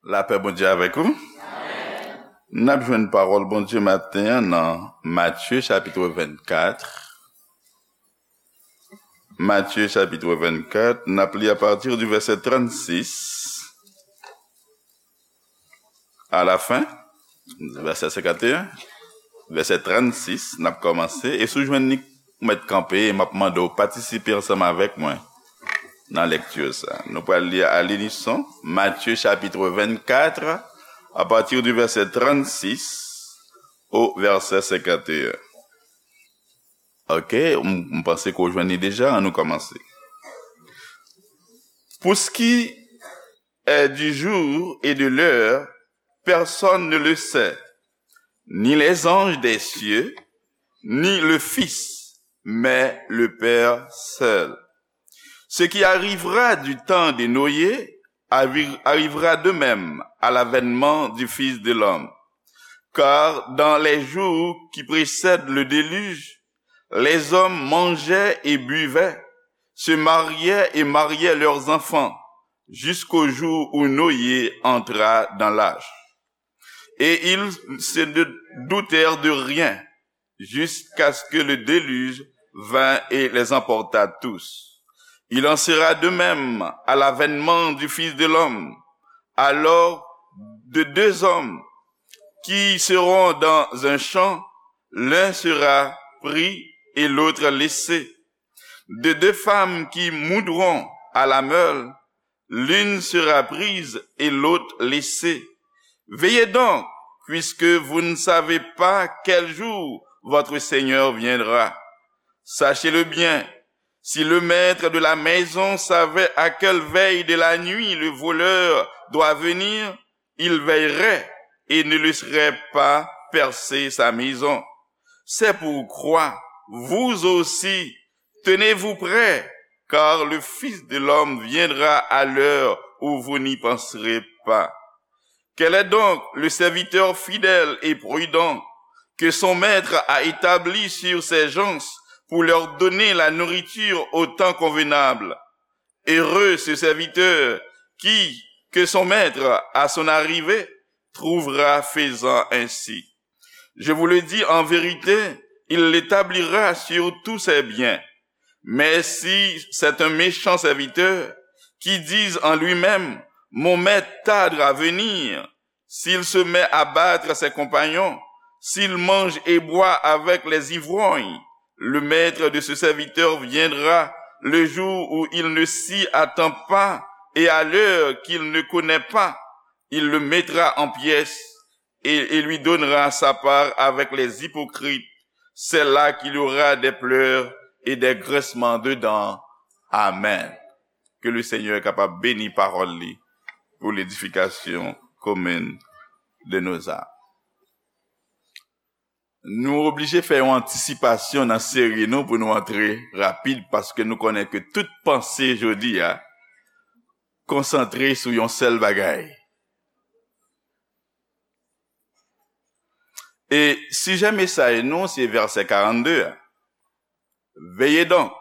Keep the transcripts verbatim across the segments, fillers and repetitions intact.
Lapè Bondye avèk ou. N ap jwenn pawòl Bondye maten an nan Matye chapit vennkat. Matye chapit vennkat, n ap li apati di vèsè trannsis a la fen, vèsè senkanteyen, vèsè trannsis, n ap kòmanse. E si w jwenn li, ou mèt kanpe, e m ap mande w patisipe ansanm avèk mwen nan lekti sa. Nou pral li a linison, Matye chapit vennkat, apati di vèsè trannsis o vèsè senkanteyen. Ok, m, m panse ke w jwenn li deja, ann nou kòmanse. Pour ce qui est du jour et de l'heure, personne ne le sait, ni les anges des cieux, ni le Fils, mais le Père seul. Ce qui arrivera du temps de Noé arri- arrivera de même à l'avènement du Fils de l'homme. Car dans les jours qui précèdent le déluge, les hommes mangeaient et buvaient, se mariaient et mariaient leurs enfants, jusqu'au jour où Noé entra dans l'arche. Et ils se ne doutèrent de rien, jusqu'à ce que le déluge vint et les emporta tous. Il en sera de même à l'avènement du Fils de l'homme. Alors, de deux hommes qui seront dans un champ, l'un sera pris et l'autre laissé. De deux femmes qui moudront à la meule, l'une sera prise et l'autre laissée. Veillez donc, puisque vous ne savez pas quel jour votre Seigneur viendra. Sachez-le bien, si le maître de la maison savait à quelle veille de la nuit le voleur doit venir, il veillerait et ne laisserait pas percer sa maison. C'est pourquoi, vous aussi, tenez-vous prêts, car le Fils de l'homme viendra à l'heure où vous n'y penserez pas. Quel est donc le serviteur fidèle et prudent que son maître a établi sur ses gens pour leur donner la nourriture au temps convenable? Heureux ce serviteur qui, que son maître, à son arrivée, trouvera faisant ainsi. Je vous le dis en vérité, il l'établira sur tous ses biens. Mais si c'est un méchant serviteur qui dise en lui-même, mon maître tarde à venir, s'il se met à battre ses compagnons, s'il mange et boit avec les ivrognes, le maître de ce serviteur viendra le jour où il ne s'y attend pas et à l'heure qu'il ne connaît pas. Il le mettra en pièces et, et lui donnera sa part avec les hypocrites. C'est là qu'il y aura des pleurs et des grincements de dents. Amen. Ke le Senyè kapab beni pawòl li pou ledifikasyon komin de nou zam. Nou oblije fè yon antisipasyon nan seri nou pou nou antre rapid, paske nou konnen ke tout panse jodi a konsantre sou yon sèl bagay. E sijè mesaj nou se vèsè karannde a. Veillez donc,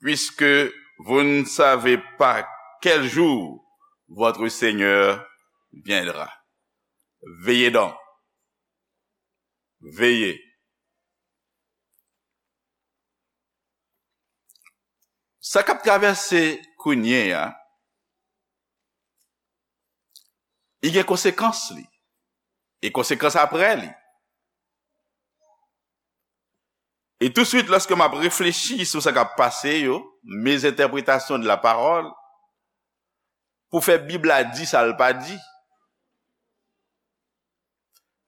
puisque vous ne savez pas quel jour votre Seigneur viendra. Veillez donc. Veillez. Sa k ap travèse kounye a, li gen konsekans li, e konsekans apre li. E touswit, lòske m ap reflechi sou sa k ap pase yo, mes interprétations de la parole, pou fè Bib la di sa l pa di,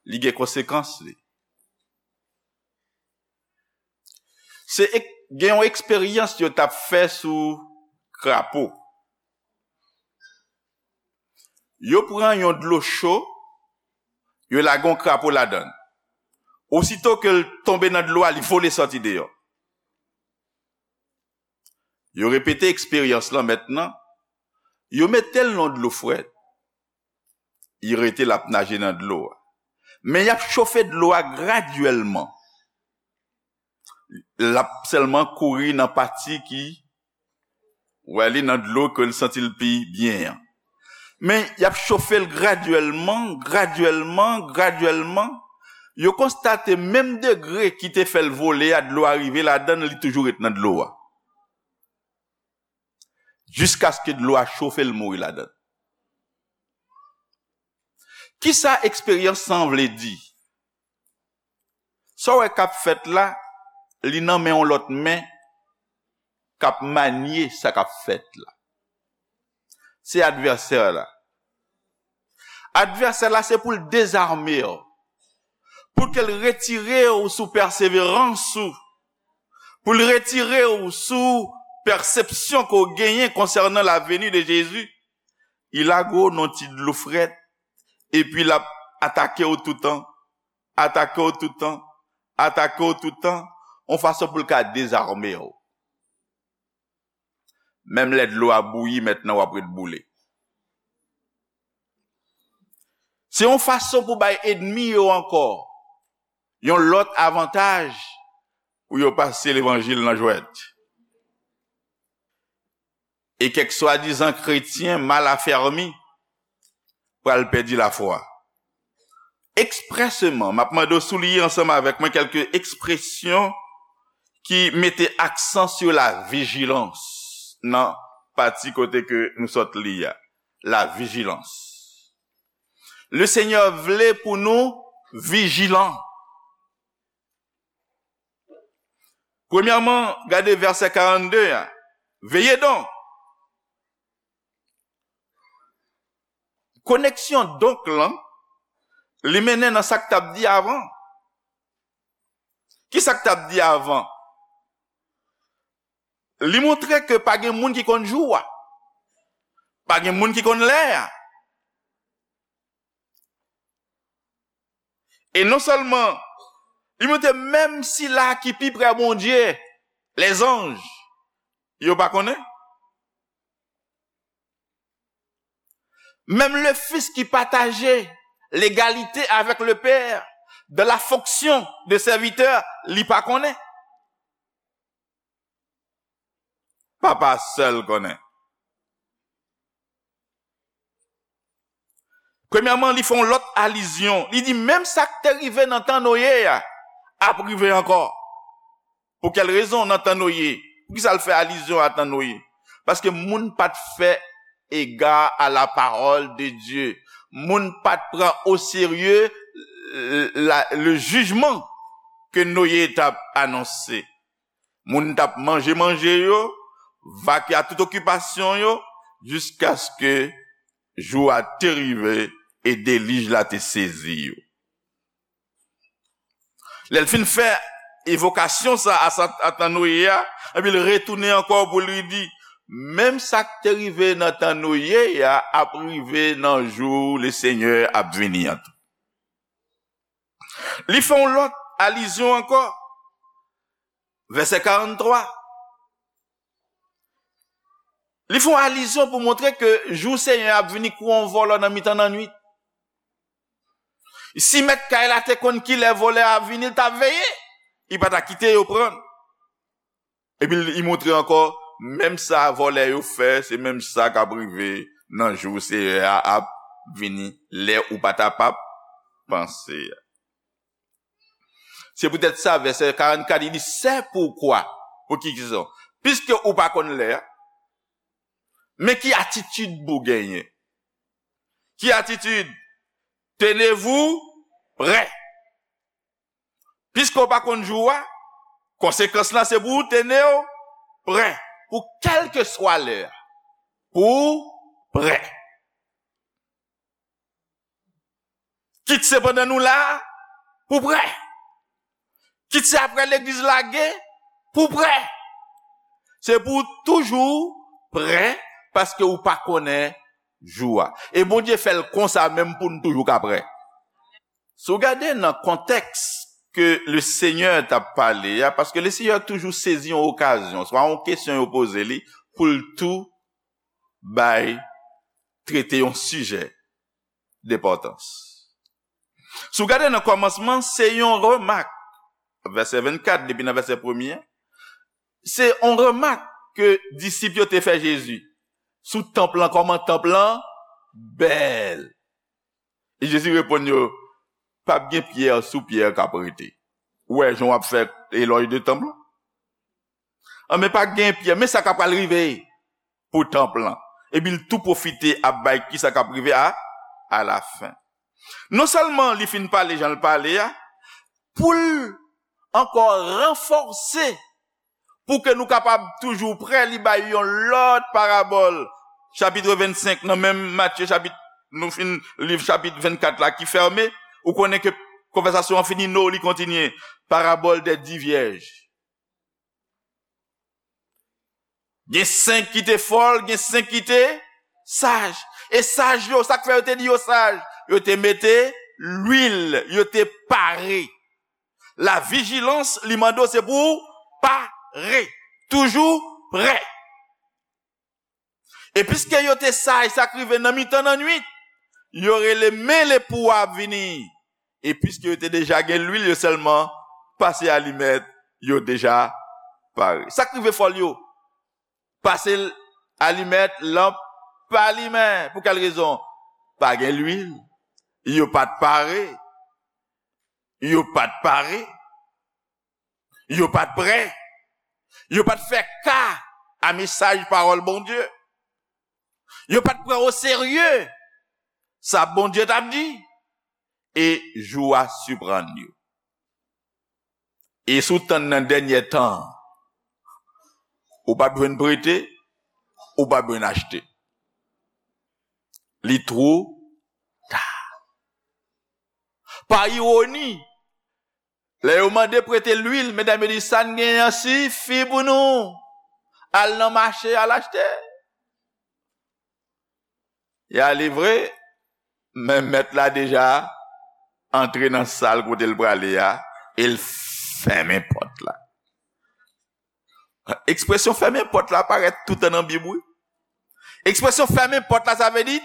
li gen konsekans li. Se ek- gen yon eksperyans yo t ap fè sou krapo. Yo pran yon dlo cho, yo lage yon krapo ladan l. Osito ke l tonbe nan dlo a, li vole sòti deyò. Yo repete eksperyans lan mentnan. Yo mete l nan dlo frèt. Li rete l ap naje nan dlo a. Men y ap chofe dlo a gradyèlman. L ap sèlman kouri nan pati ki, wè, li nan dlo ke l santi l pi byen an. Men, y ap chofe l gradyèlman, gradyèlman, gradyèlman. Yo konstate menm degre ki te fè l vole a, dlo a rive ladan l, li toujou ret nan dlo a. Jiskaske dlo a chofe l mouri ladan l. Kisa eksperyans sa vle di? Sa w wè k ap fèt la, li nan men yon lòt men k ap manye sa k ap fèt la. Se advèsè la. Advèsè la, se pou l dezame w, pou ke l retire w sou pèseverans ou, pou l retire w sou pèsepsyon ke w genyen konsènan la venue de Jésus. Li lage w nan ti dlo frèt, epi l ap atake w toutan, atake w toutan, atake w toutan, yon fason pou l ka dezame w. Menm lè dlo a bouyi, mentnan w ap ret boule. Se yon fason pou bay ènmi yo ankò yon lòt avantaj pou yo pase levanjil nan jwèt. E kèk swadizan kretyen mal afèmi pral pèdi lafwa. Eksprèseman, m ap mande w souliye ansanm avèk mwen kèlke ekspresyon ki mete aksan sou la vijilans nan pati kote ke nou sot li a. La vijilans. Le Senyè vle pou nou vijilan. Premyèman, gade vèsè karannde a. Veillez donc. Koneksyon donc lan, li mennen nan sa k t ap di avan. Ki sa k t ap di avan? Li montre ke pa gen moun ki konn jou a. Pa gen moun ki konn lè a. E non sèlman, li montre menm sila ki pi prè Bondye, lèzanj, yo pa konnen. Menm le Fils ki pataje legalite avèk le Père dans la fonction de serviteur, li pa konnen. Papa sèl konnen. Premyèman, li fè yon lòt alizyon. Li di, menm sa k te rive nan tan Noye a, ap rive ankò. Pou kèl rezon nan tan Noye? Poukisa l fè alizyon a tan Noye? Paske moun pa t fè égard à la parole de Dieu. Moun pa t pran o serye, euh, la, le jijman ke Noye t ap anonse. Moun t ap manje manje yo, vake a tout okipasyon yo, jiskaske jou a te rive e delij la te sezi yo. Lè l fin fè evokasyon sa a, sa, a tan Noye a, epi l retounen ankò pou li di, menm sa k te rive nan tan Noye a ap rive nan jou Lesenyè ap vini an tou. Li fè yon lòt alizyon ankò. Vèsè karannntwa. Li fè yon alizyon pou montre ke jou Senyè a ap vini kou yon vòlè nan mitan nannuit. Si mèt kay la te konn kilè vòlè a ap vini, li t ap veye. Li pa ta kite yo pran l. Epi li montre ankò, menm sa vòlè yo fè, se menm sa k ap rive nan jou Senyè a ap vini, lè ou pa ta p ap panse a. Se poutèt sa, vèsè karannkat, li di, c'est pourquoi, pou ki rezon? Piske ou pa konn lè a, men ki atitid pou w genyen? Ki atitid? Tenez-vous prêts. Piske w pa konn jou a, konsekans lan se pou w tene w prè, pou kèlkeswa lè a, pou w prè. Kit se pandan nou la a, pou w prè. Kit se apre legliz lage, pou w prè. Se pou w toujou prè, paske ou pa konnen jou a. E Bondye fè l konsa menm pou n toujou ka prè. Si w gade nan kontèks ke le Senyè t ap pale a, paske le Senyè toujou sezi yon okazyon, swa yon kesyon yo poze li, pou l tou bay, trete yon sijè denpòtans. Si w gade nan kòmansman, se yon remak, vèsè vennkat, depi nan vèsè premye, se yon remak ke disip yo te fè Jezi sou tanp lan, kòman tanp lan bèl. E Jezi reponn yo, p ap gen pyè sou pyè k ap rete. Ou wè jan w ap fè elòj de tanp lan? Anben, pa gen pyè, men sa k ap pral rive pou tanp lan. Epi l tou pwofite ap bay ki sa k ap rive a, alafen. Non sèlman li fin pale jan l pale a, pou l ankò ranfòse, pou ke nou kapab toujou prè, li bay yon lòt parabòl. Chapit vennsenk, nan menm Matye, chapit, nou fin liv chapit vennkat la ki fèmen, ou konnen ke konvèsasyon an fini, non, li kontinye. Parabòl dè di vyèj. Gen senk ki te fòl, gen senk ki te saj. E saj yo, sa k fè yo te di yo saj? Yo te mete lwil, yo te pare. La vijilans, li mande w se pou w pare. Toujou prè. E piske yo te saj, sa k rive nan mitan nan nwit, yo rele, men lepou a ap vini. E piske yo te deja gen lwil, yo sèlman pase alimèt, yo deja pare. Sa k rive fòl yo? Pase l-, alimèt, lanp pa limen. Pou kèl rezon? Pa gen lwil. Yo pa t pare. Yo pa t pare. Yo pa t prè. Yo pa t fè ka a mesaj pawòl Bondye. Yo pa t pran oserye sa Bondye t ap di. E jou a siprann yo. E si w tann nan dènyè tan, ou p ap jwenn prete, ou p ap jwenn achte. Li two ta. Pa iwoni, lè yo mande prete lwil, medam yo di, "Sa n genyen an sifi pou nou. Al nan mache, al achte." Y ale vre, men mèt la deja antre nan sal kote l prale a, e l fèmen pòt la. Ekspresyon fèmen pòt la parèt toutan nan Bib, wi. Ekspresyon fèmen pòt la, sa vle di,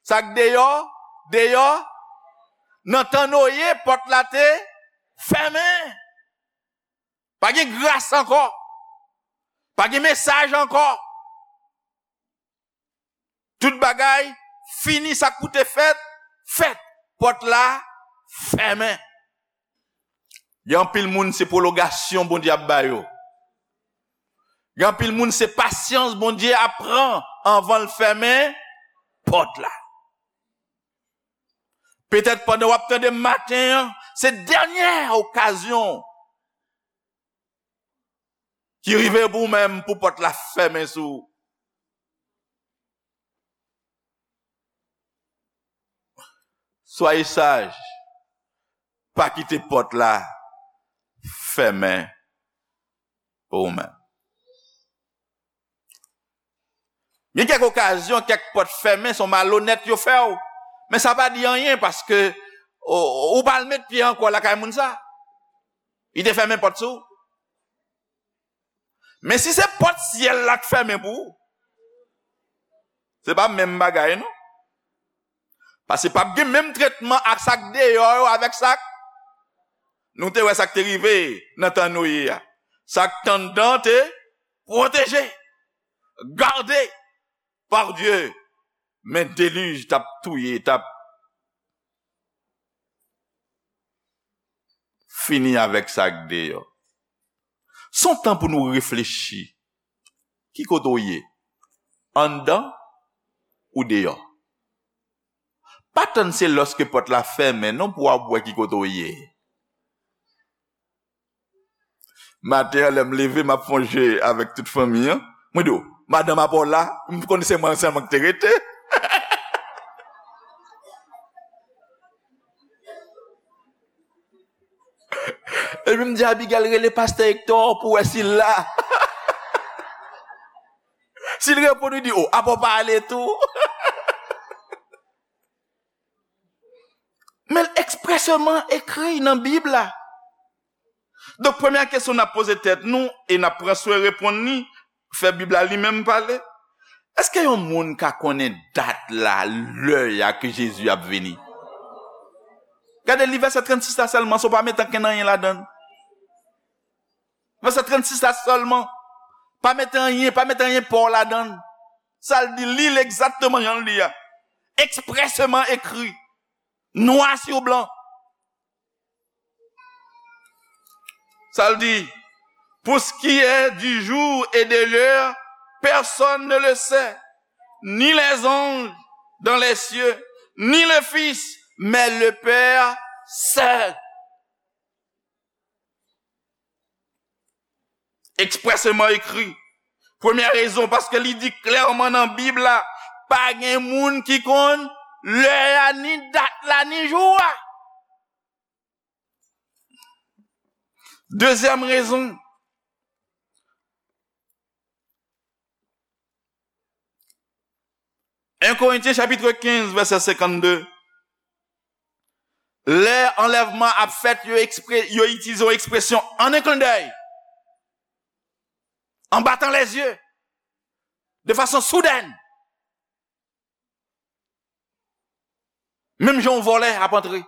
sa k deyò, deyò. Nan tan Noye, pòt la te fèmen. Pa gen gras ankò. Pa gen mesaj ankò. Tout bagay fini, sa k pou te fèt, fèt. Pòt la fèmen. Gen anpil moun, se pwolongasyon Bondye ap ba yo. Gen anpil moun, se pasyans Bondye ap pran anvan l fèmen pòt la. Petèt pandan w ap tande m maten an, se dènyè okazyon ki rive pou ou menm pou pòt la fèmen sou ou. Soyez sage, pa kite pòt la fèmen pou ou menm. Gen kèk okazyon, kèk pòt fèmen, se yon malonèt yo fè w. Men sa pa di anyen paske ou, ou pa al met pye ankò lakay moun sa. Li te fèmen pòt sou ou. Men si se pòt syèl la k fèmen pou ou, se pa menm bagay non. Paske p ap gen menm tretman ak sa k deyò yo avèk sa k, nou te wè sa k te rive nan tan Noye a. Sa k t anndan te pwoteje, gade pa Dye, men delij t ap touye, t ap fini avèk sa k deyò. Se yon tan pou nou reflechi. Ki kote w ye? Anndan ou deyò? Pa tann se lòske pòt la fèmen non pou w ap wè ki kote w ye. Maten an, lè m leve, m ap fè yon je avèk tout fanmi an. Mwen di, "O, madanm apa w la?" M konnen se mwen sèlman ki te rete. Epi m di Abigail, "Rele pastè Hector pou wè si l la." Si l reponn, li di, "O, apa w pa ale tou?" Men l ekspresèman ekri nan Bib la. Donk, premyè kesyon n ap poze tèt nou, e n ap pran swen reponn li, fè Bib la li menm pale. Èske yon moun ka konnen dat la, lè a ke Jezi ap vini? Gade, li vèsè trannsis la sèlman, si w pa mete ankenn anyen ladan l. Vèsè trannsis la sèlman. Pa mete anyen, pa mete anyen pa w ladan l. Sa l di, li l egzakteman jan l di a. Expressément écrit, noir sur blanc. Sa l di, pour ce qui est du jour et de l'heure, personne ne le sait, ni les anges dans les cieux, ni le Fils, mais le Père seul. Expressément écrit. Premyè rezon, paske li di klèman nan Bib la, pa gen moun ki konn lè a, ni dat la, ni jou a. Dezyèm rezon, en Korentyen chapit kenz, vèsè senkannde. Lè anlèvman ap fèt, yo, ekspre, yo itilize yon ekspresyon en un clin d'œil, en battant les yeux, de façon soudaine. Menm jan yon vòlè ap antre.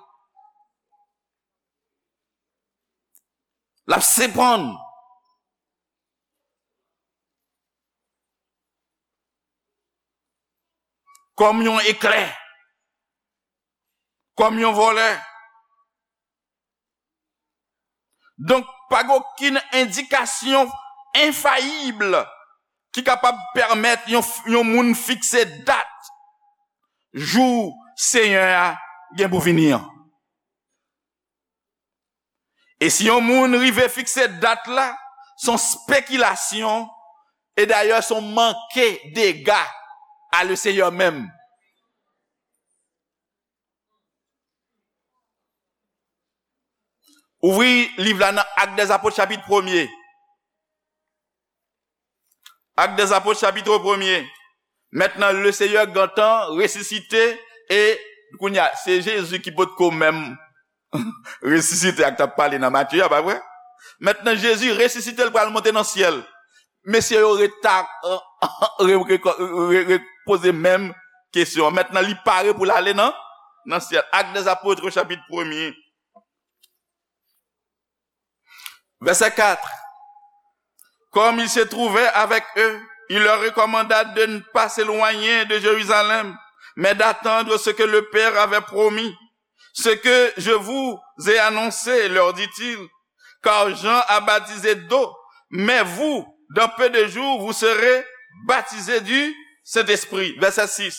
L ap sepann kòm yon eklè, kòm yon vòlè. Donk, pa gen okenn endikasyon enfayib ki kapab pèmèt yon, yon moun fikse dat jou Senyè a gen pou vini an. E si yon moun rive fikse dat la, se yon spekilasyon, e dayè se yon manke dega a le Senyè menm. Ouvri liv la nan Actes des Apôtres, chapit premye. Actes des Apôtres, chapit premye. Mentnan, le Senyè gentan resisite, e kounye a, se Jezi ki potko menm resisite ak t ap pale nan Matye a, pa vre? Mentnan, Jezi resisite, l pral monte nan syèl. Mesye yo ret ta, re, re, re, re, re poze menm kesyon an. Mentnan, li pare pou l ale nan, nan syèl. Actes des Apôtres, chapit premye. Verset quatre. Comme il se trouvait avec eux, il leur recommanda de ne pas s'éloigner de Jérusalem, mais d'attendre ce que le Père avait promis. Ce que je vous ai annoncé, leur dit-il, car Jean a baptisé d'eau, mais vous, dans peu de jours, vous serez baptisés du Saint-Esprit. Verset six.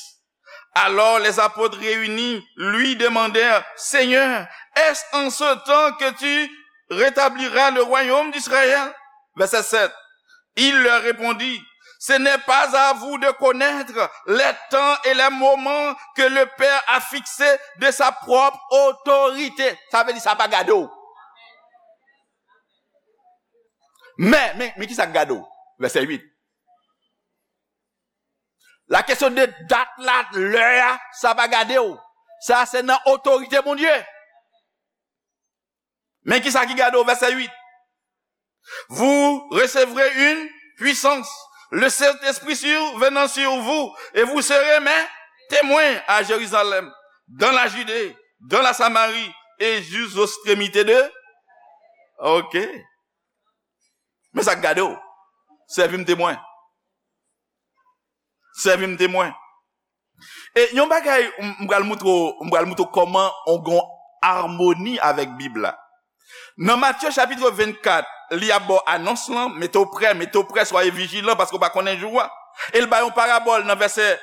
Alors les apôtres réunis lui demandèrent, Seigneur, est-ce en ce temps que tu rétabliras le royaume d'Israël? Verset sept. Il leur répondit, Ce n'est pas à vous de connaître les temps et les moments que le Père a fixés de sa propre autorité. Sa vle di sa pa gade w. Men, men, men ki sa k gade w? Vèsè uit. La kesyon de dat la, lè a, sa pa gade w. Sa se nan otorite Bondye. Men ki sa ki gade w, vèsè uit. Vous recevrez une puissance, le Saint-Esprit survenant sur vous, et vous serez mes témoins à Jérusalem, dans la Judée, dans la Samarie, et jusqu'aux extrémités de. Ok. Men sa k gade w. Sèvi m temwen. Sèvi m temwen. E yon bagay, m, m pral moutre w, m pral moutre w kòman on gon amoni avèk Bib la. Nan Matye chapit vennkat, li ap ba w anons lan, mete w prè, mete w prè, soyez vigilant, paske w pa konnen jou a. E l bay yon parabòl nan vèsè,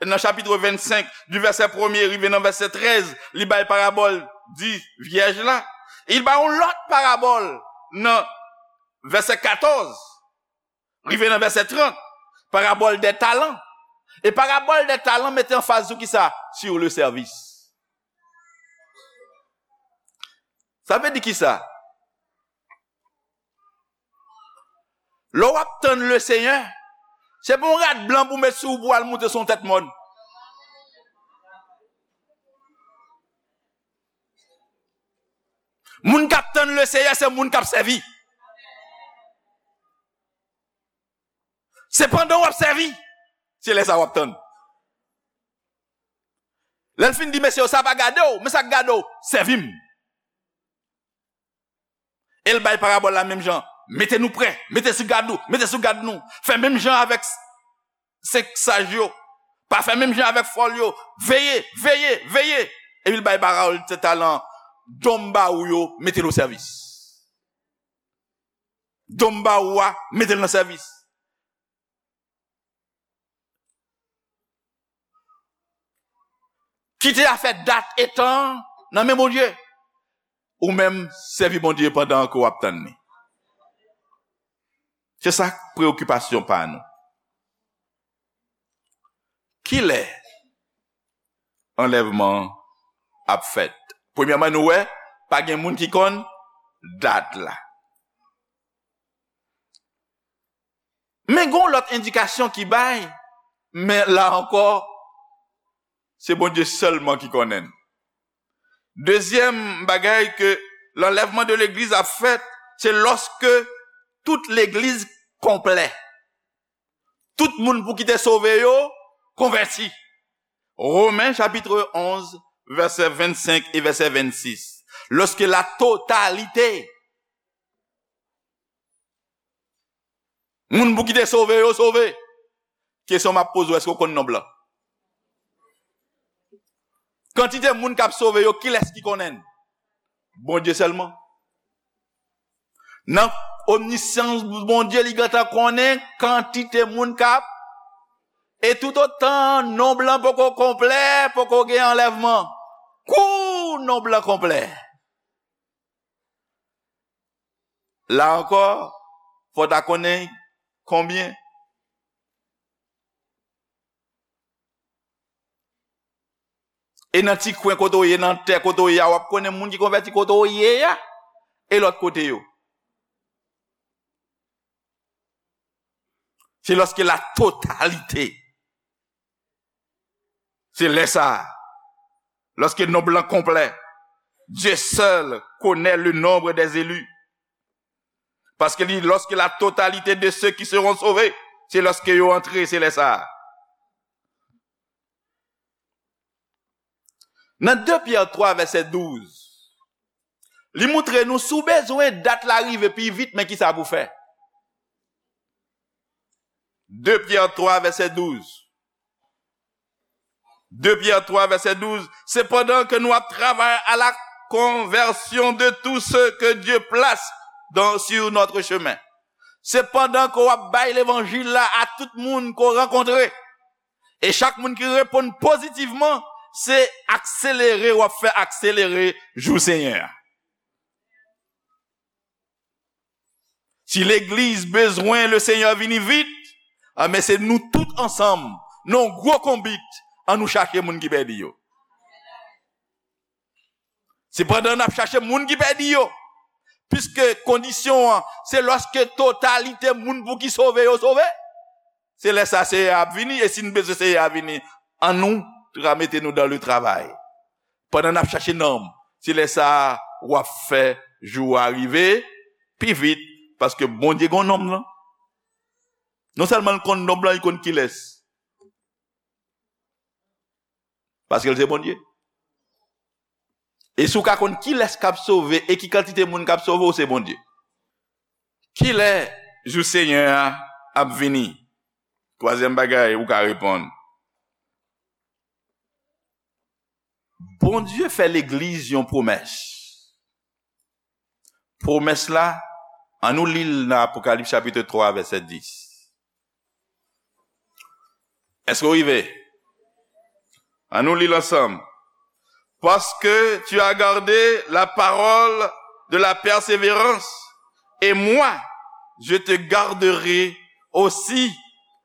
nan chapit vennsenk, di vèsè premye rive nan vèsè trèz, li bay parabòl di vyèj la. E l bay yon lòt parabòl nan vèsè katòz rive nan vèsè trant, parabòl dè talan. E parabòl dè talan mete anfaz sou kisa? Sur le service. Sa vle di kisa? Lè w ap tann le Senyè, se pa yon rad blan pou w met sou ou pou w al moute sou yon tèt mòn. Moun k ap tann le Senyè, se moun k ap sèvi. Se pandan w ap sèvi, se lè sa w ap tann. Lè l fin di, mesye, sa pa gade w, men sa k gade w, sèvi m. E l bay parabòl la menm jan. Mete nou prè, mete sou gad nou, mete sou gad nou. Fè menm jan avèk senk saj yo. Pa fè menm jan avèk fòl yo. Veye, veye, veye. Epi l bay Baal sèt talan. Don m ba ou yo, mete l o sèvis. Don m ba ou a, mete l nan sèvis. Kite afè dat e tan nan men Bondye. Ou menm, sèvi Bondye pandan ke w ap tann li. Se sa k preyokipasyon pa nou. Kilè anlèvman ap fèt? Premyèman, nou wè, pa gen moun ki konn dat la. Men gen yon lòt endikasyon ki bay, men la ankò, se Bondye sèlman ki konnen l. Dezyèm bagay ke lanlèvman de legliz ap fèt, se lòske tout legliz konplè. Tout moun pou ki te sove yo, konvèti. Romen chapit onz, vèsè vennsenk e vèsè vennsis. Lòske la totalite moun pou ki te sove yo sove. Kesyon m ap poze w, èske w konn nonb lan? Kantite moun k ap sove yo, kilès ki konnen l? Bondye sèlman. Nan omnisyans Bondye, li gentan konnen kantite moun k ap. E toutotan nonb lan poko konplè, poko gen anlèvman. Kou nonb lan konplè. La ankò, fò w ta konnen konbyen. E nan ti kwen kote w ye, nan tè kote w ye a, w ap konnen moun ki konvèti kote w ye a, e lòt kote yo. Se lòske la totalite. Se lè sa a, lòske nonb lan konplè, Dieu seul connaît le nombre des élus. Paske li, lorsque la totalité de ceux qui seront sauvés, se lòske yo antre, se lè sa a. Nan de Pyè twa, vèsè douz, li montre nou, si w bezwen dat la rive pi vit, men kisa pou fè. De Pyè twa, vèsè douz. De Pyè twa, vèsè douz. Cependant que nous travaillons à la conversion de tous ceux que Dieu place dans, sur notre chemin. Sepandan ke w ap bay levanjil la a tout moun ke w rankontre. E chak moun ki reponn pozitivman, se akselere w ap fè akselere jou Senyè a. Si legliz bezwen le Senyè vini vit, anben se nou tout ansanm, nan yon gwo konbit, ann nou chache moun ki pèdi yo. Sepandan, n ap chache moun ki pèdi yo. Piske kondisyon an, se lòske totalite moun pou ki sove yo sove. Se lè sa Seyè a ap vini, e si n bezwen Seyè a vini, ann nou tra-, mete nou dans le travail. Pandan n ap chache nanm, se lè sa a w ap fè jou a rive pi vit, paske Bondye gen nonm lan. Non sèlman l konn nonm lan, li konn kilès. Paske l se Bondye. E si w ka konn kilès k ap sove e ki kantite moun k ap sove, w se Bondye. Kilè jou Senyè a ap vini? Twazyèm bagay ou ka reponn. Bondye fè legliz yon pwomès. Pwomès la, ann nou li l nan Apokalips chapit twa, vèsè dis. Èske w rive? Ann nou li l ansanm. Parce que tu as gardé la parole de la persévérance, et moi, je te garderai aussi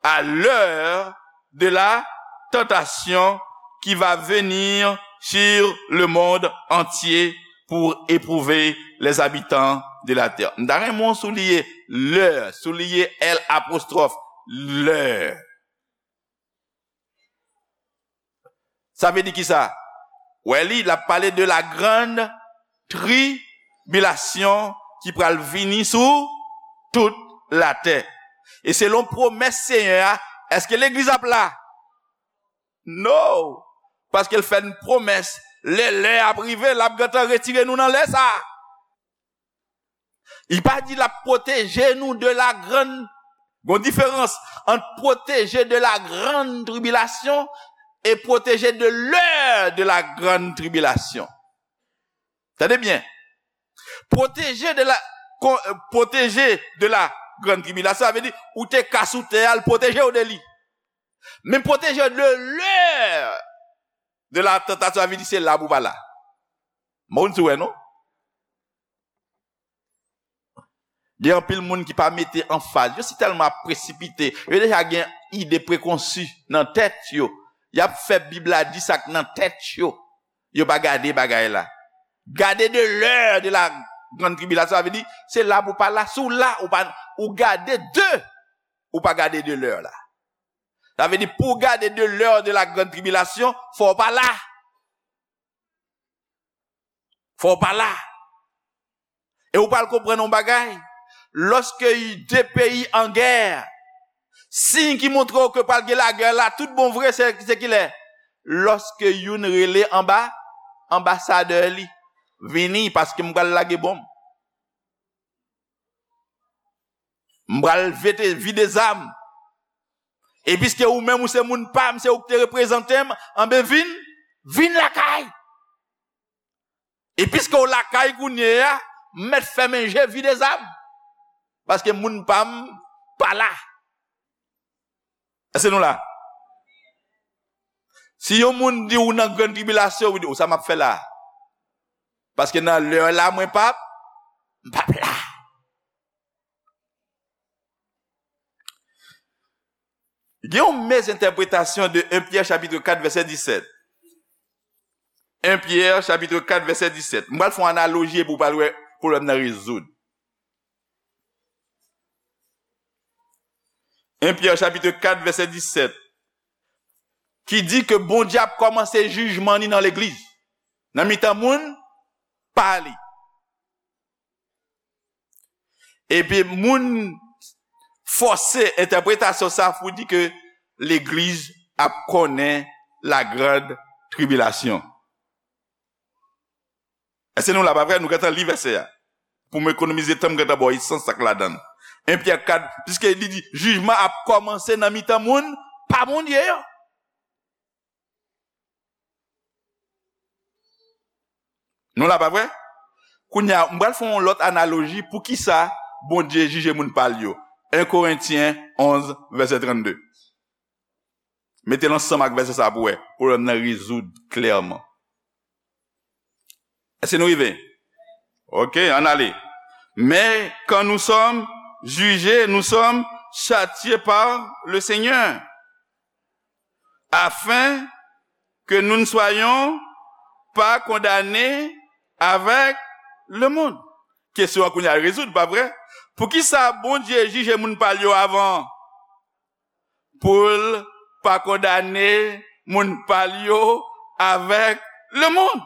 à l'heure de la tentation qui va venir sur le monde entier pour éprouver les habitants de la terre. M ta renmen w souliye lè, souliye L apostwòf, lè. Sa vle di kisa? Wè li, l ap pale de la grande tribulation ki pral vini sou tout latè. E selon pwomès Senyè a, èske legliz ap la? No! Paske l fè n pwomès, lè lè a ap rive, l ap gentan retire nou nan lè sa a. Li pa di l ap pwoteje nou de la grande Gon diferans ant protégé de la grande tribulation et protégé de l'heure de la grande tribulation. Tande byen. Protégé de la, kon- euh, protégé de la grande tribulation, sa vle di ou te ka sou tè a, l pwoteje w de li. Men protégé de l'heure de la tentation, sa vle di se la pou pa la. Moun sou wè non. Gen anpil moun ki pa mete anfaz. Yo si tèlman ap presipite. Yo deja gen ide prekonsi nan tèt yo. Y ap fè Bib la di sa k nan tèt yo. Yo pa gade bagay la. Gade de l'heure de la grande tribulation, sa vle di, se la pou pa la, si w la, ou pa, ou gade de, ou pa gade de l'heure la. Sa vle di, pou w gade de l'heure de la grande tribulation, fò w pa la. Fò w pa la. E ou pral konprann yon bagay. Lòske de peyi an gè, siy ki montre w ke pral gen lagè la, tout bon vre, se, se kilè? Lòske youn rele anba, anbasadè li, vini, paske m pral lage bonm. M pral vete, vide zam. E piske ou menm ou se moun pa m, se ou ki te reprezante m, anben vin, vin lakay. E piske w lakay kounye a, m mèt fèmen je, vide zam. Paske moun pa m pa la. Èske nou la? Si yon moun di ou nan grann tribilasyon, ou di, "O, sa m ap fè la?" Paske nan lè la, mwen p ap, m p ap la. Gen yon mezentèpretasyon de un Pyè chapit kat vèsè disèt. Un Pyè chapit kat vèsè disèt. M pral fè yon analoji epi w pral wè pwoblèm nan rezoud. Un Pyè chapit kat vèsè disèt. Ki di ke Bondye ap kòmanse jijman ni nan legliz, nan mitan moun pa li. Epi moun fòse entèpretasyon sa pou di ke legliz ap konnen la grande tribulation. Èske nou la, pa vre? Nou gentan li vèsè a. Pou m ekonomize tan, m gentan ba w esans sa k ladan l. Un Pyè kat, piske li di, jijman ap kòmanse nan mitan moun pa Bondye yo. Nou la, pa vre? Kounye a, m pral fè yon lòt analoji pou ki sa Bondye jije moun pa l yo. Un Korentyen onz, vèsè trannde. Mete l ansanm ak vèsè sa pou wè. Pwoblèm nan rezoud klèman. Èske nou rive? Ok, ann ale. Mais quand nous sommes jugés, nous sommes châtiés par le Seigneur, afin que nous ne soyons pas condamnés avec le monde. Kesyon an kounye a rezoud, pa vre? Poukisa Bondye jije moun pa l yo avan? Pou l pa kondane moun pa l yo avèk lemonn.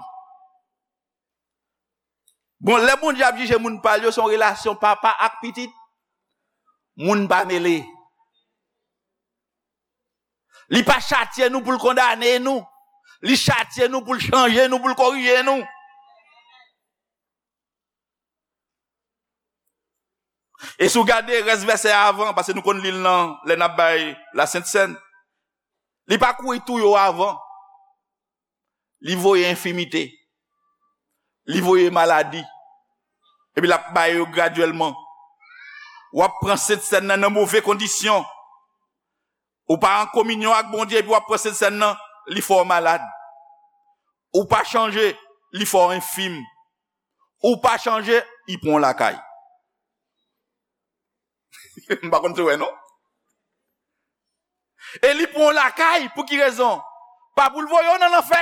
Bon, lè Bondye ap jije moun pa l yo, se yon relasyon papa ak pitit. Moun pa mele. Li pa chatye nou pou l kondane nou. Li chatye nou pou l chanje nou, pou l korije nou. E si w gade rès vèsè a avan, paske nou konn li l nan, lè n ap bay Lasent Sèn, li pa kouri touye w avan. Li voye enfimite. Li voye maladi. Epi l ap bay yo gradyèlman. W ap pran Sent Sèn nan nan move kondisyon. Ou pa an kominyon ak Bondye, epi w ap pran Sent Sèn nan, li fè w malad. Ou pa chanje, li fè w enfim. Ou pa chanje, li pran w lakay. M pa konn si w wè non. E li pran w lakay, pou ki rezon? Pa pou l voye w nan lanfè.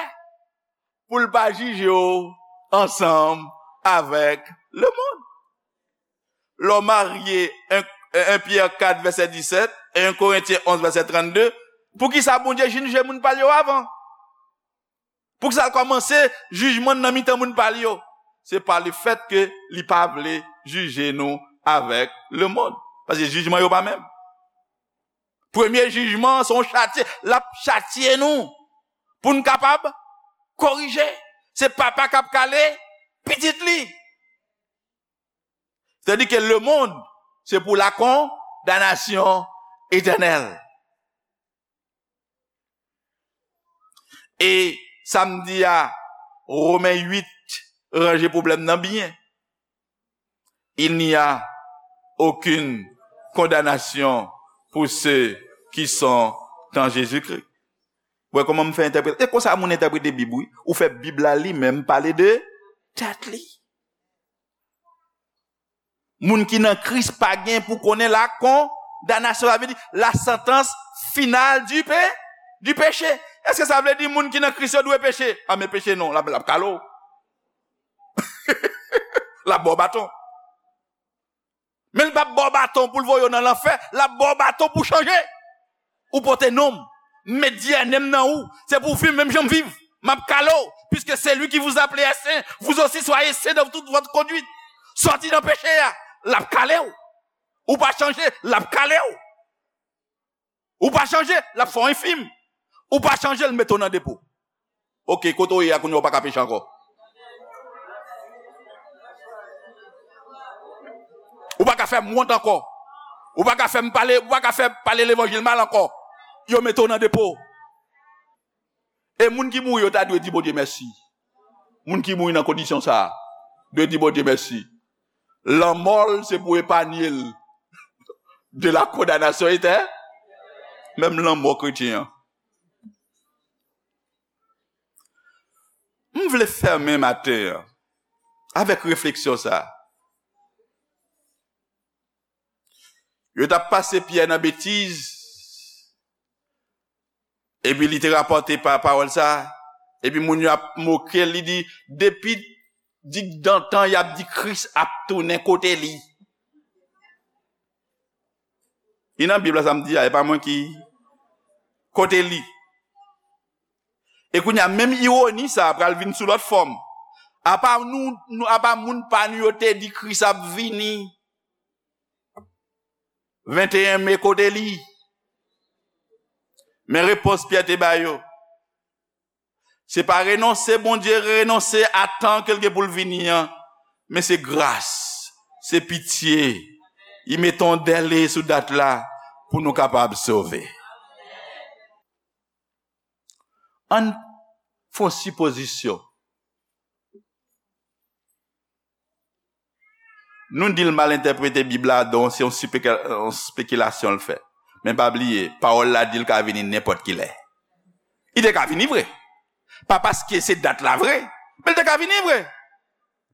Pou l pa jije w ansanm avèk lemonn. Lè w marye, un, un Pyè kat vèsè disèt, un Korentyen onz vèsè trannde, poukisa Bondye jije moun pa l yo avan? Poukisa l kòmanse jijman nan mitan moun pa l yo? Se pa lefèt ke li pa vle jije nou avèk lemonn. Paske jijman yo pa menm. Premye jijman an se yon chatye. L ap chatye nou pou n kapab korije. Se papa k ap kale pitit li. Tandike lemonn, se pou la kon-, damnasyon etènèl. E samdi a, Women uit ranje pwoblèm nan byen. Il n'y a aucune condamnation pour ceux qui sont en Jésus-Christ. Wè kòman m fè entèprete. E konsa moun entèprete Bib, wi. Ou fè Bib la li menm pale de tèt li. Moun ki nan Kris pa gen pou konnen la kondanasyon, sa vle di la santans final du pe, du péché. Èske sa vle di moun ki nan Kris yo dwe peche? A men peche non, l ap, l ap kale w. L ap ba w baton. Men l p ap ba w baton pou l voye w nan lanfè, l ap ba w baton pou w chanje. Ou pote non m, m met D N A m nan ou, se pou w viv menm jan m viv. M ap kale w, puisque celui qui vous appelle est saint, vous aussi soyez saints dans toute votre conduite. Sòti nan peche a, l ap kale w. Ou pa chanje, l ap kale w. Ou pa chanje, l ap fè w enfim. Ou pa chanje, l mete w nan depo. Oke, kote w ye a kounye a, ou pa ka peche ankò. Ou pa ka fè m wont ankò. Ou pa ka fè m pale, ou pa ka fè pale levanjil mal ankò. Yo mete w nan depo. E moun ki mouri yo ta dwe di Bondye mèsi. Moun ki mouri nan kondisyon sa a dwe di Bondye mèsi. Lanmò l se pou epanye l de la kondanasyon etè, menm lanmò kretyen an. M vle fèmen maten an avèk refleksyon sa a. Yo t ap pase Pyè nan betiz, epi li te rapòte pa pawòl sa, epi moun yo ap moke l, li di, depi digdantan y ap di Kris ap tounen, kote li? Li nan Bib la, sa m di a, e pa mwen ki, kote li? E kounye a, menm iwoni sa a pral vin sou lòt fòm. Apa nou, nou, apa moun pa nou yo te di Kris ap vini venteyen me, kote li? Men repons Pyè te ba yo. Se pa renonse Bondye, renonse a tan ke l gen pou l vini an, men se gras, se pitye. Li mete yon dèle sou dat la pou nou kapab sove. Ann fè yon sipozisyon. Nou di l mal entèprete Bib la, donk se yon sipeke-, yon spekilasyon l fè. Men pa bliye, pawòl la di l ka vini nenpòt ki lè. Li te ka vini vre. Pa paske se dat la vre, men li te ka vini vre.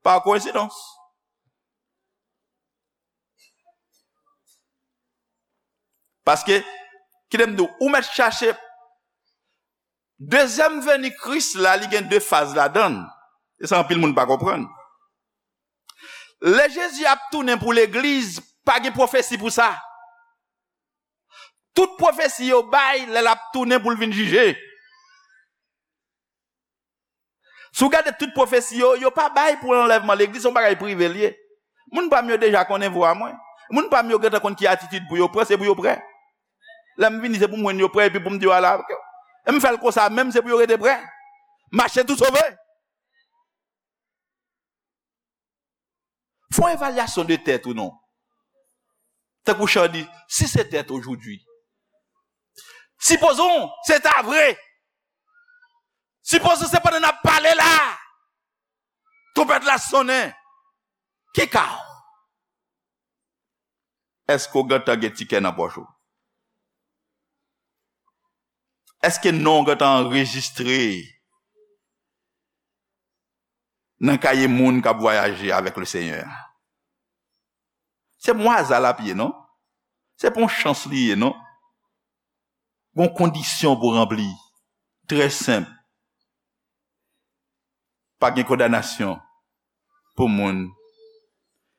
Pa koyensidans. Paske, kite m di w, ou mèt chache. Dezyèm veni Kris la, li gen de faz ladan l. E sa anpil moun pa konprann. Lè Jezi ap tounen pou legliz, pa gen pwofesi pou sa. Tout pwofesi yo bay lè l ap tounen pou l vin jije. Si w gade tout pwofesi yo, yo pa bay pou anlèvman legliz, se yon bagay prive l ye. Moun pa m yo deja konnen vwa mwen. Moun pa m yo gentan konn ki atitid pou yo pran, se pou yo prè. Lè m vini, se pou m jwenn yo prè, epi pou m di yo ale avèk yo. E m fè l konsa menm, se pou yo rete prè. Mache tou sove. Fè yon evalyasyon de tèt ou non. Tankou chan di, si se tèt aujourd'hui. Sipozon, se ta vre. Sipozon se pandan n ap pale la, twonpèt la sonnen. Ki ka w? Èske w gentan gen tikè nan pòch ou? Èske non w gentan anrejistre nan kaye moun k ap vwayaje avèk Lesenyè a? Se pa yon aza l ap ye, non. Se pa yon chans li ye, non. Gon kondisyon pou ranpli. Trè senp. Pa gen kondanasyon pou moun.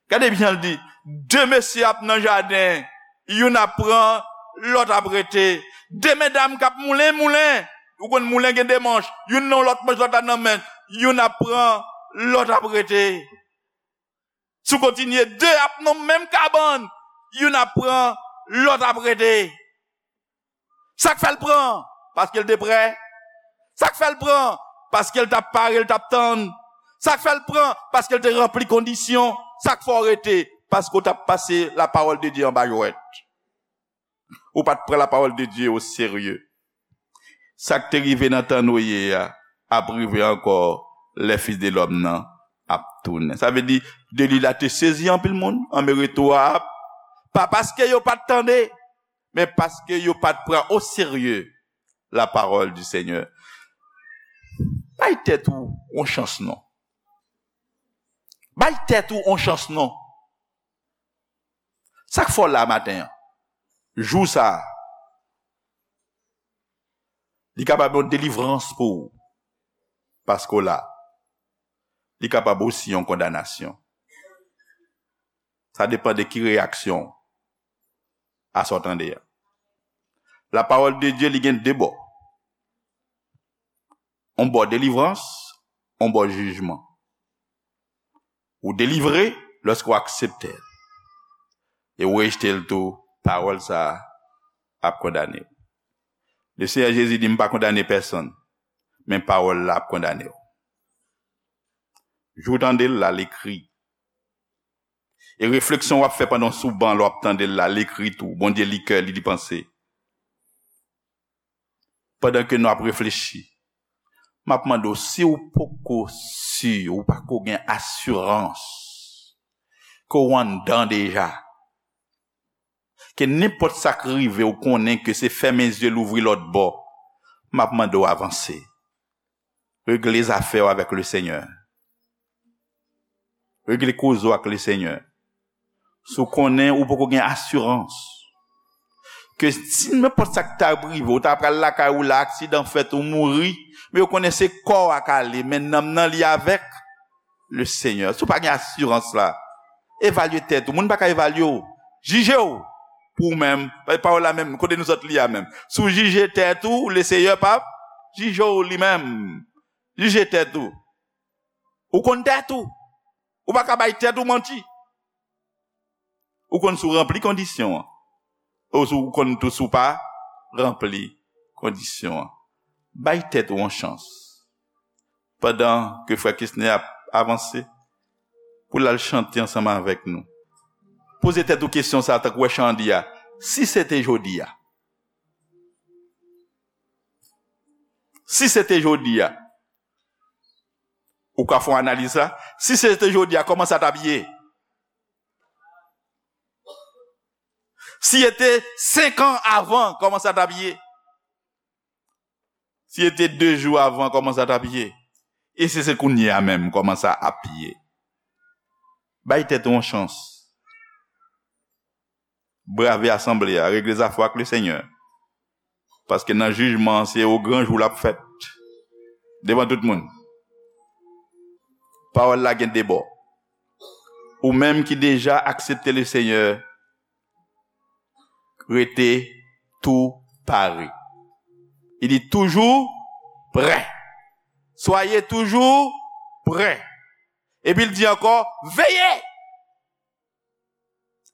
Gade byen, l di, de mesye ap nan jaden, youn ap pran, lòt ap rete. De medam k ap moulen, moulen. Ou konn moulen gen de manch, youn nan lòt manch, lòt la nan men, youn ap pran, lòt ap rete. Si w kontinye, de ap nan menm kabann, youn ap pran, lòt ap rete. Sa k fè l pran? Paske l te prè. Sa k fè l pran? Paske l t ap pare, l t ap tann. Sa k fè l pran? Paske l te ranpli kondisyon. Sa k fè w rete? Paske w t ap pase la parole de Dieu anba jwèt. Ou pa t pran lapawòl de Dye o serye. Sa k te rive nan tan Noye a ap rive ankò lè Fis de lòm nan ap tounen. Sa vle di, delij la te sezi anpil moun, anmè retou a ap, pa paske yo pa t tande, men paske yo pa t pran o serye lapawòl di Senyè. Bay tèt ou yon chans non. Bay tèt ou yon chans non. Sa k fè w la maten an? Jou sa a, li kapab yon delivrans pou ou, paske w la. Li kapab osi yon kondanasyon. Sa depann de ki reyaksyon a sa w tande a. Lapawòl de Dye, li gen de bò. Yon bò delivrans, yon bò jijman. Ou delivre lòske w aksepte l. E ou rejte l tou, pawòl sa a ap kondane w. Le Senyè Jezi di, "M pa kondane pèsonn, men pawòl la ap kondane w." Jou w tande l la, l ekri. E refleksyon w ap fè pandan w sou ban, lè w ap tande l la, l ekri tou. Bondye li kè, li li panse. Pandan ke nou ap reflechi, m ap mande w, si w poko si, ou pako gen asirans ke w anndan deja, ke nenpòt sa k rive, w konnen ke se fèmen zye, louvri lòt bò, m ap mande w avanse. Regle zafè w avèk le Senyè. Regle koze w ak le Senyè. Si w konnen ou poko gen asirans ke si nenpòt sa k ta rive, ou ta pral lakay ou la, aksidan fèt, ou mouri, men yo konnen se kò w a k ale, men nanm nan li avèk le Senyè. Si w pa gen asirans la, evalye tèt ou. Moun pa ka evalye w. Jije w pou ou menm. Pawòl la menm, kote nou sot li a menm. Si w jije tèt ou, le Senyè p ap jije w li menm. Jije tèt ou. Ou konn tèt ou. Ou pa ka bay tèt ou manti. Ou konn si w ranpli kondisyon an. Ou si w konn tou si w pa ranpli kondisyon an. Bay tèt ou yon chans. Pandan ke frè Kesner ap avanse, pou l al chante ansanm avèk nou. Poze tèt ou kesyon sa a, tankou wè chan an di a. Si se te jodi a. Si se te jodi a. Ou ka fè yon analiz la. Si se te jodi a, kòman sa t ap ye? Si se te senk an avan, kòman sa t ap ye? Si se te de jou avan, kòman sa t ap ye? E si se kounye a menm, kòman sa ap ye? Bay tèt ou yon chans. Brave asanble a, regle zafè w ak le Senyè. Paske nan jijman an, se o gran jou l ap fèt. Devan tout moun. Pawòl la gen de bò. Ou menm ki deja aksepte le Senyè, rete tou pare. Li di, toujou prè. Soyez toujours prêts. Epi l di ankò, veye.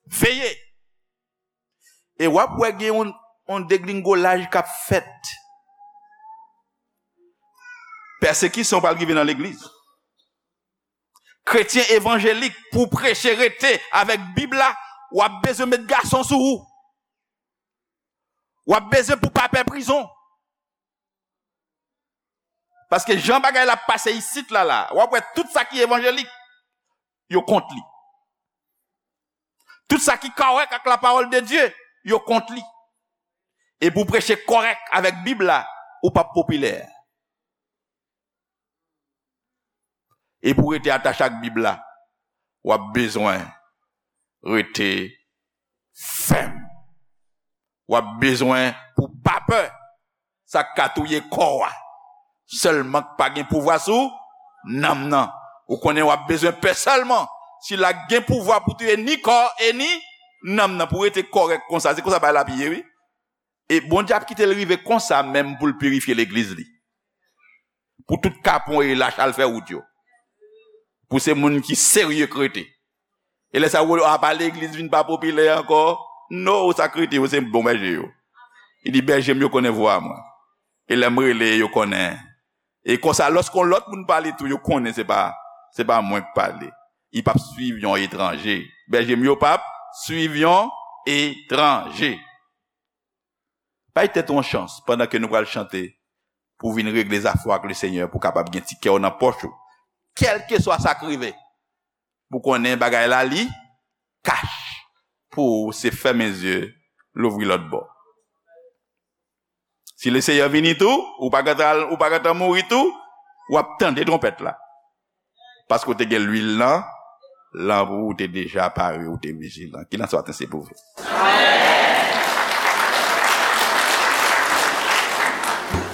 Veye. E w ap wè gen yon, yon deglingolaj k ap fèt. Pèsekisyon pral rive nan legliz. Kretyen evanjelik, pou w preche, rete avèk Bib la, w ap bezwen met gason sou ou. W ap bezwen pou pa pè prizon. Paske jan bagay la ap pase isit la, la, w ap wè tout sa ki evanjelik, yo kont li. Tout sa ki kòrèk ak lapawòl de Dye, yo kont li. E pou w preche kòrèk avèk Bib la, ou p ap popilè. E pou w rete atache ak Bib la, w ap bezwen rete fèm. W ap bezwen pou w pa pè sa k ka touye kò a. Sèlman k pa gen pouvwa sou nanm nan. Ou konnen w ap bezwen pè sèlman sila k gen pouvwa pou touye ni kò e ni nanm nan, pou w rete kòrèk konsa. Se konsa bagay la ap ye, wi. E Bondye ap kite l rive konsa menm pou l pirifye legliz li. Pou tout kapon e lach al fè wout yo. Pou se moun ki serye k rete. E lè sa yo, apa legliz vin pa popilè ankò? No, sa k rete yo, se bon bèje yo. Li di, bèje m yo konnen vwa mwen. E lè m rele, yo konnen. E konsa, lòske yon lòt moun pale tou, yo konnen se pa, se pa mwen k pale. Li p ap swiv yon etranje. Bèje m yo p ap swiv yon etranje. Bay tèt ou yon chans pandan ke nou pral chante pou w vin regle zafè w ak Lesenyè, pou w kapab gen ti kè w nan pòch ou. Kèlkeswa sa k rive, pou konnen bagay la li kach. Pou ou se fèmen zye, louvri lòt bò. Si Lesenyè vini tou, ou pa gentan, ou pa gentan mouri tou, w ap tande twonpèt la. Paske w te gen lwil nan lanp ou, ou te deja pare, ou te vijilan. Kilès maten se pou vre?